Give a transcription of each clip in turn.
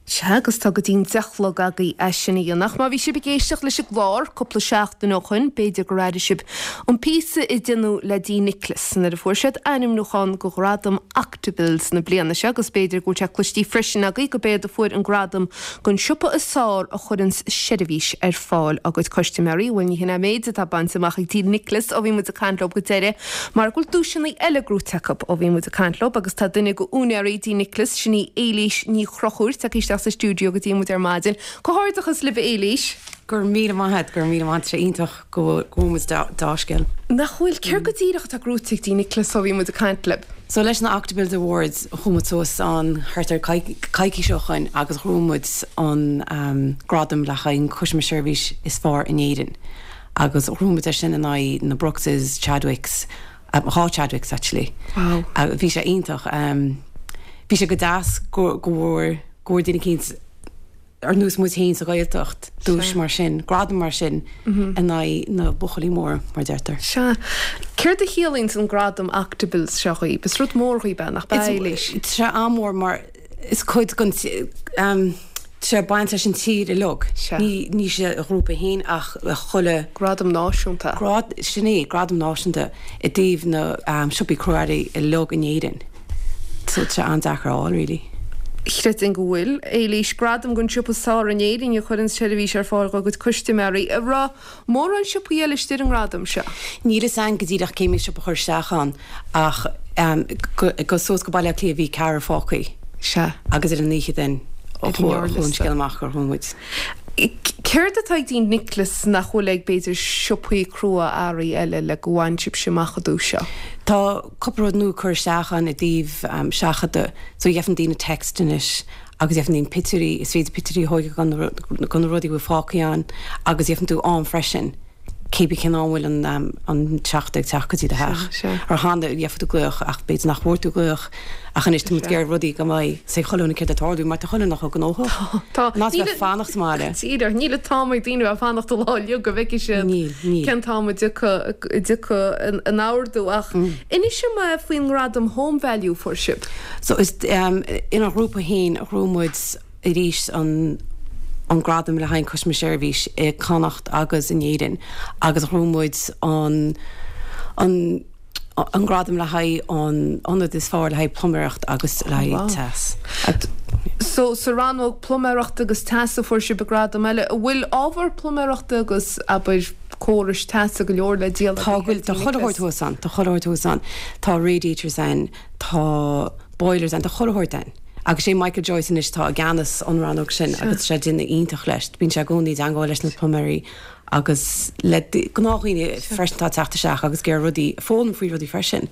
Sea, agus tá go dtí'n 10 a chlog agaibh é sin a dhéanamh. Ach má bhí sibh ag éisteacht leis an gclár cúpla seachtain ó shoin, b'fhéidir gur airigh sibh an píosa a deineadh le D Nicholas nuair a fuair siad ainmniúchán go Ghradam Octobill's na bliana seo agus b'fhéidir go bhfuil sé cloistí freisin agaibh go b'éad a fuair an gradam gon siopa is fearr a chuireanns seirbhís ar fáil dá gcuid custaiméirí. Bhuel, ní hin é an méid atá bainte amach ag D Nicholas ó bhí muid ag caint leo go deireadh mar go bhfuil duaiseanna eile gnóite acu ó bhí muid ag caint leo agus tá duine go úinéirí D Nicholas, sin í Éilís Ní Chonchúir, tagtha isteach sa stiúideo go dtí muid ar maidin. Comhghairdeachas libh a Éilís! Go raibh míle maith agat, go raibh míle maith agat, tá sé iontach go bhfuil muid deá-scéal. Nach bhfuil? Céard go díreach atá gnóite ag D Nicholas ó bhí muid ag caint libh? So leis na Octobills Awards chuaigh muid suas ann thart ar coicís ó shoin agus ghnóthaigh muid an gradam le haghaidh an Customer Service is fearr in Éirinn agus ghnóthaigh muid é sin in aghaidh na Brookses, Chadwicks, 2 Chadwicks actually. Wow. Bhí sé iontach. Bhí sé go deas go go bhfuair go bhfuair duine eicínt ar nós muid féin sa Ghaeltacht duais mar sin, gradam mar sin in aghaidh na buachaillí móra, mar deirtear. Sea. Céard a chiallaíonns an gradam Octobill's seo dhaoib? Is rud mór dhaoib é, nach b'ea, Éilís? Tá sé an-mhór mar is cuid den tá sé ag baint leis an tír uilig. Ní ní sa ghrúpa féin ach chuile. Gradam náisiúnta. Grad, sin é, gradam náisiúnta i dtaobh na siopaí crua-earraí uilig in Éirinn. So tá sé an-deacair a fháil really. Chreidfinn go bhfuil. Éilís, Gradam don siopa is fearr in Éirinn a chuireann seirbhís ar fáil dá gcuid custaiméirí. An raibh mórán siopaí eile istigh ar an ngradam seo? Níl fhios a'inn go díreach cé mhéad siopa a chuir isteach ann ach go suas go Baile Átha Cliath bhí ceathrar fágthaí. Sea. Agus ar an oíche then chuaigh an scéal amach gur ghnóthaigh muid. Céard atá ag D Nicholas nach bhfuil ag, b'fhéidir, siopaí crua-earraí eile le go bhain sibhse amach an duais seo? Tá cúpla rud nua curtha isteach ann i dtaobh seachadadh so gheibheann daoine text anois agus gheibheann daoine pictiúirí, is féidir pictiúirí a thóigeadh go na rudaí a bhfuil fágthaí ann agus gheibheann tú am freisin cé bith cén am bhfuil an an seachadadh ag teacht go dtí do theach. Mar cheana gheibheadh tú glaoch ach b'fhéidir nach bhfuair tú glaoch ach anois tá muid ag iarraidh rudaí go mbeidh a fhios ag chuile dhuine céard atá ag tarlú mar tá chuile dhuine chomh gnóthach. Tá. Ná bheith ag fanacht sa mbaile. Díreach, níl an t-am ag daoine bheith ag fanacht an lá uilig go bhfeicfidh siad Níl, níl. cén t-am a dtiocfaidh a dtiocfaidh an ordú ach inis dom faoin ngradam Home Value a fuair sibh. So is inár ghrúpa féin a ghnóthaigh muid arís an an gradam le haghaidh an Customer Service i Connacht agus in Éirinn agus ghnóthaigh muid an an an gradam le haghaidh an ionad is fearr le haghaidh pluiméireacht agus le haghaidh teas. So sa rannóg pluiméireachta agus teas a fuair sibh an gradam eile. An bhfuil ábhar pluiméireachta agus abair córais teasa go leor le díol Tá go bhfuil tá chuile shórt thuas ann, tá chuile shórt thuas ann. Tá radiators ann, tá boilers ann, tá chuile shórt ann. Agus sé Michael Joyce anois atá i gceannas an rannóg sin agus tá sé ag déanamh iontach leis. Bíonn sé i gcónaí i dteangmháil leis na pluiméirí agus le gnáthdhaoine freisin atá ag teacht isteach agus ag iarraidh rudaí, foghlaim faoi rudaí freisin.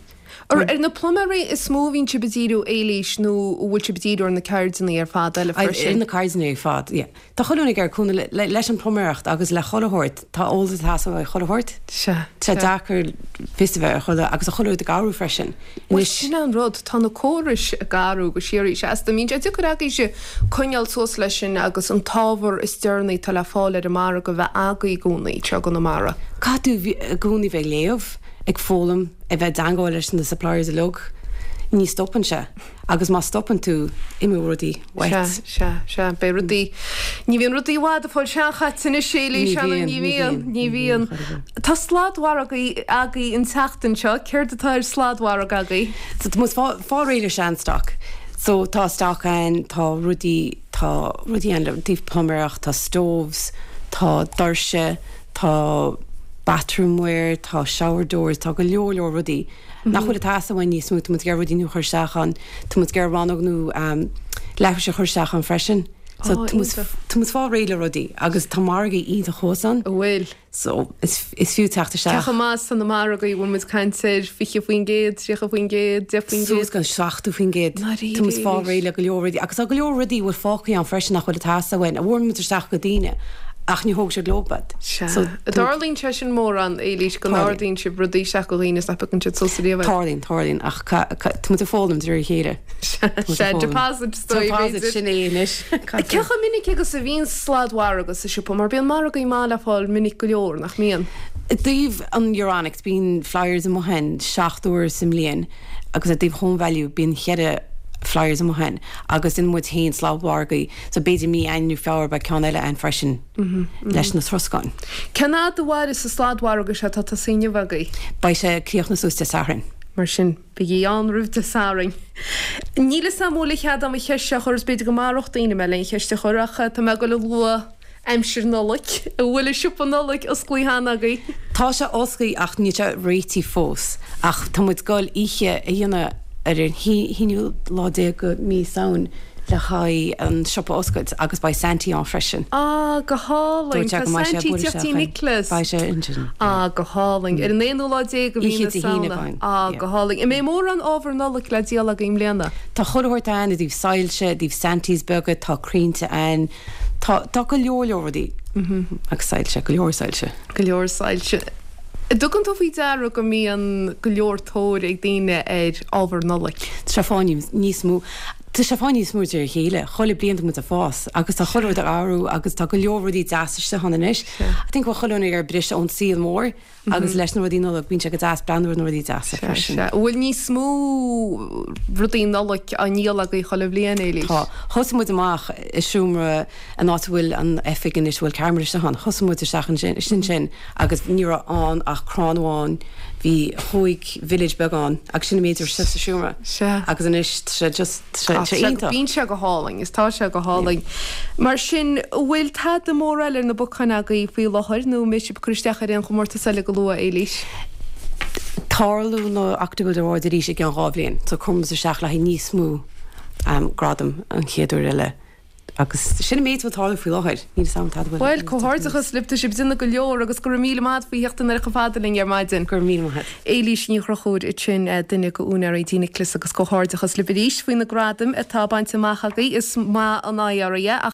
Ar na pluiméirí is mó a bhíonn sibh ag díriú, Éilís, nó an bhfuil sibh ag díriú ar na ceirdeanna ar fad eile freisin? Ar na ceirdeanna ar fad, yeah. Tá chuile dhuine ag iarraidh cúnamh leis an pluiméireacht agus le chuile shórt. Tá eolas ag teastáil ó chuile shórt. Sea. Tá sé deacair fios a bheith ar chuile, agus tá chuile rud ag athrú freisin. Bhuel, sin é an rud, tá na córais ag athrú go síoraí seasta. An mbíonn sé deacair agaibhse coinneáil suas leis sin agus an t-ábhar is deireanaí atá le fáil ar an margadh a bheith agaibh i gcónaí, anseo i gConamara. Caithfidh tú i gcónaí bheith ag léamh, ag foghlaim, ag bheith i dteangmháil leis na suppliers uilig. Ní stopann sé. Agus má stopann tú, imeoidh rudaí uait. Sea, sea, sea. Beidh rudaí, ní bhíonn rudaí i bhfad ag fáil seanchaite anois, a Éilís, Ní bhíonn, ní bhíonn, ní bhíonn. Tá sladmhargadh agaibh an tseachtain seo. Céard atá ar sladmhargadh agaibh? So tá muid fáil réidh le sean-stock. So tá stock ann, tá rudaí, tá rudaí ann le taobh pluiméireacht, tá stoves, tá doirse, tá bathroomware, tá shower doors, tá go leor leor rudaí. Nach bhfuil ag teastáil uainn níos mó, tá muid ag iarraidh rudaí nua a chur isteach ann, tá muid ag iarraidh rannóg nua leithris a chur isteach ann freisin. So tá muid, tá muid fáil réidh le rudaí agus tá margaí iontach thuas ann. An bhfuil? So is, is fiú teacht isteach. Cé chomh maith is tá na margaí, bhfuil muid ag caint ar 20%, 30%, 10%? Suas go 70%. Dáiríre? Tá muid fáil réidh le go leor rudaí agus tá go leor rudaí a bhfuil fágtha ann freisin nach bhfuil ag teastáil uainn, a bhfuair muid isteach go daoine ach ní thóg siad leo iad. Sea. So, Tarlaíonn sé sin mórán, Éilís, go n-ordaíonn sibh rudaí isteach go dhaoine is nach bpiocann siad suas ariamh iad. Tarlaíonn, tarlaíonn, ach tá muid ag foghlaim de réir a chéile. Sea, deposit is dóigh, b'fhéidir. Deposit, sin é anois. Cé chomh minic agus a bhíonn sladmhargadh sa siopa? Mar bíonn margaí maith le fáil minic go leor, nach mbíonn? I dtaobh an Euronics, bíonn flyers amuigh ann 7 uair sa mbliain agus i dtaobh Home Value bíonn cheithre. flyers amuigh ann agus déanann muid féin sladmhargaí so b'fhéidir mí Eanáir nó Feabhra beidh ceann eile ann freisin leis na troscáin. Cén fhad a mhairfeas an sladmhargadh seo atá tosaithe inniu agaibh? Beidh sé ag críochnú suas Dé Sathairn. Mar sin, bígí ann roimh Dé Sathairn. Níl 'fhios a'm an bhfuil a chead a'm an cheist seo a chur is b'fhéidir go maródh daoine mé le an cheist a chur ach tá mé ag dul a lua aimsir Nollag. An bhfuil an siopa Nollag osclaithe cheana agaibh? Tá sé osclaithe ach níl sé réitithe fós. Ach tá muid ag dul oíche a dhéanamh ar an haonú lá déag de mí Samhain le haghaidh an siopa a oscailt agus beidh Santy ann freisin. Ah, go hálainn. Tá Santy ag teacht tí Nicholas. Beidh sé ansin. Ah, go hálainn. Ar an aonú lá déag de mhí na Samhna. Ah, go hálainn. An mbeidh mórán ábhar Nollag le díol agaibh i mbliana? Tá chuile shórt ann i dtaobh soilse, i dtaobh Santies beaga, tá crainnte ann. Tá, tá go leor leor rudaí agus soilse, go leor soilse. Go leor soilse. An dtugann tú faoi deara go mbíonn go leor tóir ag daoine ar ábhar Nollag? Tá sé ag fáil níos mó, tá sé ag fáil níos mó de réir a chéile. Chuile bliain tá muid ag fás agus tá chuile rud ag athrú agus tá go leor rudaí deasa istigh ann anois. I think go bhfuil chuile dhuine ag iarraidh briseadh ón saol mór Agus leis na rudaí Nollag, bíonn sé go deas breathnú ar na rudaí deasa freisin. Sea. An bhfuil níos mó rudaí Nollag á ndíol agaibh chuile bhliain, Éilís? Tá. Thosaigh muid amach i seomra, an áit a bhfuil an oifig anois, a bhfuil ceamara istigh ann. Thosaigh muid isteach ansin, ansin agus ní raibh ann ach crann amháin. Bhí chúig village beag ann agus sin an méid a raibh istigh sa seomra. Sea. Agus anois tá sé just, tá sé iontach. Bíonn sé go hálainn, is tá sé go hálainn. Mar sin, an bhfuil tada mór eile ar na bacáin agaibh faoi láthair nó an mbeidh sibh ag cur isteach ar aon chomórtas eile go luath, Éilís? Tarlóidh na Octagold Awards arís i gceann 2 bhliain, so cuirfidh muid isteach le haghaidh níos mó gradam an chéad uair eile. Agus sin an méid atá ag tarlú faoi láthair. Níl 'fhios a'm tada bhfuil. Bhuel, comhghairdeachas libh, tá sibh ag déanamh go leor agus go raibh míle maith a't faoi theacht anoir chomh fada linn ar maidin. Go raibh míle maith a't. Éilís Ní Chonchúir ansin, duine de úinéirí Dí Nicholas agus comhghairdeachas libh arís faoi na gradaim atá bainte amach agaibh. Is maith an áidh oraibh é.